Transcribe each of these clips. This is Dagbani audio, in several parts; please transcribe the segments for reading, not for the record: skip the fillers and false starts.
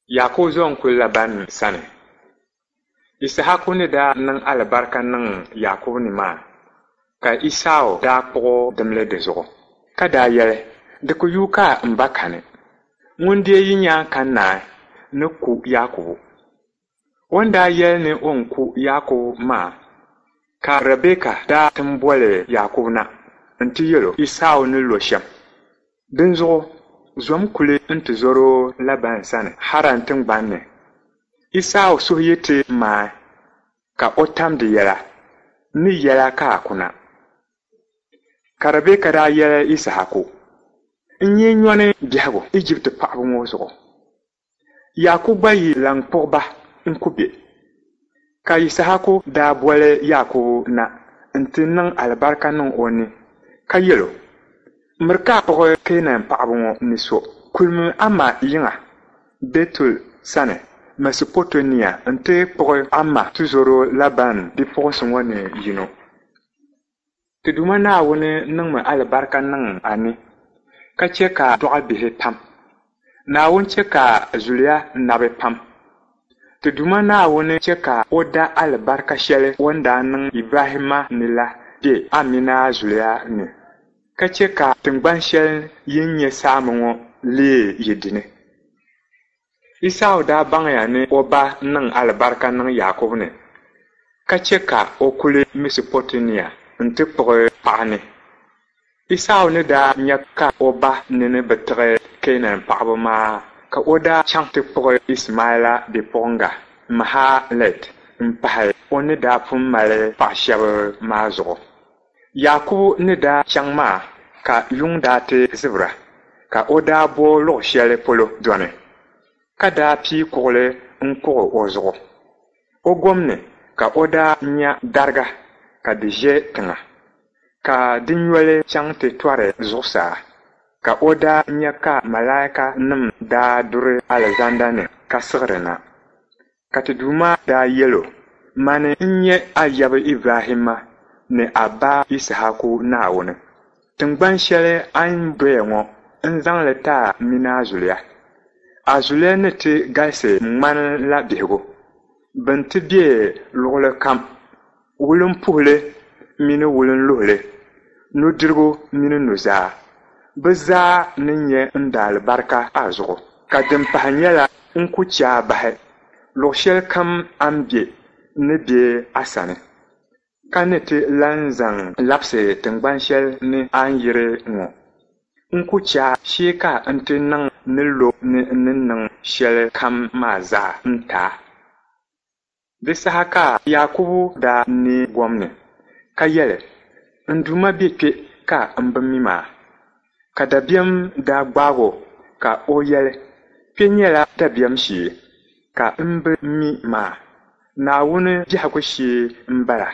Yaakubu zo n-kuli Laban sani. Yisahaku ni daa niŋ alibarika niŋ Yaakubu ni maa, ka Isau daa kpuɣi dimli di zuɣu, ka daa yɛli, Di ku yuui ka m ba kani. Ŋun deei yi nya ka naai ni ku Yaakubu. O ni daa yɛli ni o ni ku Yaakubu maa, ka Ribɛka daa ti boli Yaakubu na nti yɛl o Isau ni lo shɛm. Dinzuɣu zom kuli nti zɔr o Laban sani Haran tiŋgbani ni. Isau suhu yi ti maai, ka o tam di yɛla, n ni yɛl a ka a kuna. Ka Ribɛka daa yɛli Yisahaku, N nyee nyɔni biɛhigu Ijipti paɣiba ŋɔ zuɣu. Yaakubu gba yi lan kpuɣi ba n-ku bɛ. Ka Yisahaku daa boli Yaakubu na nti niŋ alibarika niŋ o ni, ka yɛl o, Miri ka a kpuɣi Keenan paɣiba ŋɔ ni so. Kulimi a ma yiŋa Bɛtuɛl sani Mɛsopoteemia nti kpuɣi a ma tizɔro Laban bipuɣinsi ŋɔ ni yino. Ti Duuma Naawuni niŋmi alibarika niŋ a ni, ka chɛ ka a dɔɣi bihi pam. Naawuni chɛ ka a zuliya nabi pam. Ti Duuma Naawuni chɛ ka o da alibarika shɛli o ni daa niŋ Ibrahimma ni la be a min a zuliya ni, ka chɛ ka tiŋgban shɛli yin nyɛ saami ŋɔ leei yi dini. Isau daa baŋya ni o ba niŋ alibarika niŋ Yaakubu ni, ka chɛ ka o kuli Mɛsopoteemia nti kpuɣi paɣ ni. Isau ni daa nya ka o ba nini bi tiɣi Keenan paɣiba maa, ka o daa chaŋ ti kpuɣi Ishimaila bipuɣiŋga Mahalat m-pahi o ni daa pun mali paɣ shɛba maa zuɣu. Yaakubu ni daa chaŋ maa ka yuŋ daa ti zibira, ka o daa bo luɣ shɛli polo dɔni, ka daa pii kuɣili n-kuɣ o zuɣu. O gom ni ka o daa nya dariga ka di ʒe tiŋa, ka di nyoli chaŋ ti tɔri zuɣusaa, ka o daa nya ka malaikanim daa duri alizanda ni ka siɣiri na. Ka ti Duuma daa yɛl o, Mani n-nyɛ a yab Ibrahimma ni a ba Yisahaku Naawuni. Tiŋgban shɛli a ni doya ŋɔ, n zaŋ li ti a min a zuliya. A zuliya ni ti galisi ŋ-ŋmani la bihigu. Bɛ ni ti be luɣilikam, wulimpuhili mini wulinluhili, nudirigu mini nuzaa. Bɛ zaa ni nya n daalibarika a zuɣu. Ka din pahi nyɛla n ku chɛ a bahi. Luɣ shɛlikam a ni be, n ni be a sani, ka ni ti lan zaŋ labisi tiŋgban shɛli ni a ni yiri ŋɔ. N ku chɛ a shee ka n ti niŋ n ni lo ni n ni niŋ shɛlikam maa zaa n-ti a. Di saha ka Yaakubu daa neei gom ni, ka yɛli, N Duuma be kpe ka m bi mi maa. Ka dabiɛm daa gbaag o ka o yɛli, Kpe nyɛla dabiɛm shee, ka m bi mi maa. Naawuni biɛhigu shee m-bala,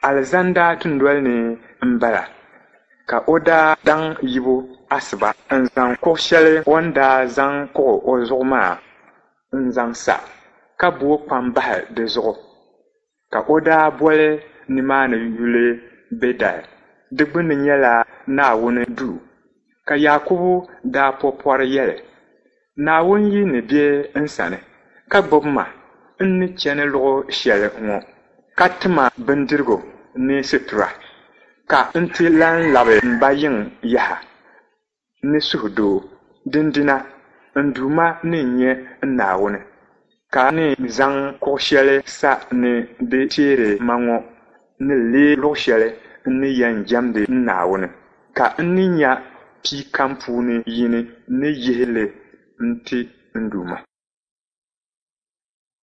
alizanda dunoli ni m-bala. Ka o daa daŋ yibu asiba n-zaŋ kuɣ shɛli o ni daa zaŋ kuɣ o zuɣu maa n-zaŋ sa, ka booi kpam bahi di zuɣu. Ka o daa boli nimaani yuli Bɛtɛl, di gbunni nyɛla Naawuni duu. Ka Yaakubu daa po pɔri yɛli, Naawuni yi ni be n sani, ka gbibi ma n ni chani luɣ shɛli ŋɔ, ka ti ma bindirigu ni situra, ka n ti lan labi m ba yiŋ yaha ni suhudoo, dindina n Duuma ni nyɛ n Naawuni, ka ni zaŋ kuɣ shɛli sa ni di teeri ma ŋɔ ni leei luɣ shɛli n ni yɛn jɛmdi n Naawuni, ka n ni nya pia kam puuni yini ni yihi li n-ti n Duuma.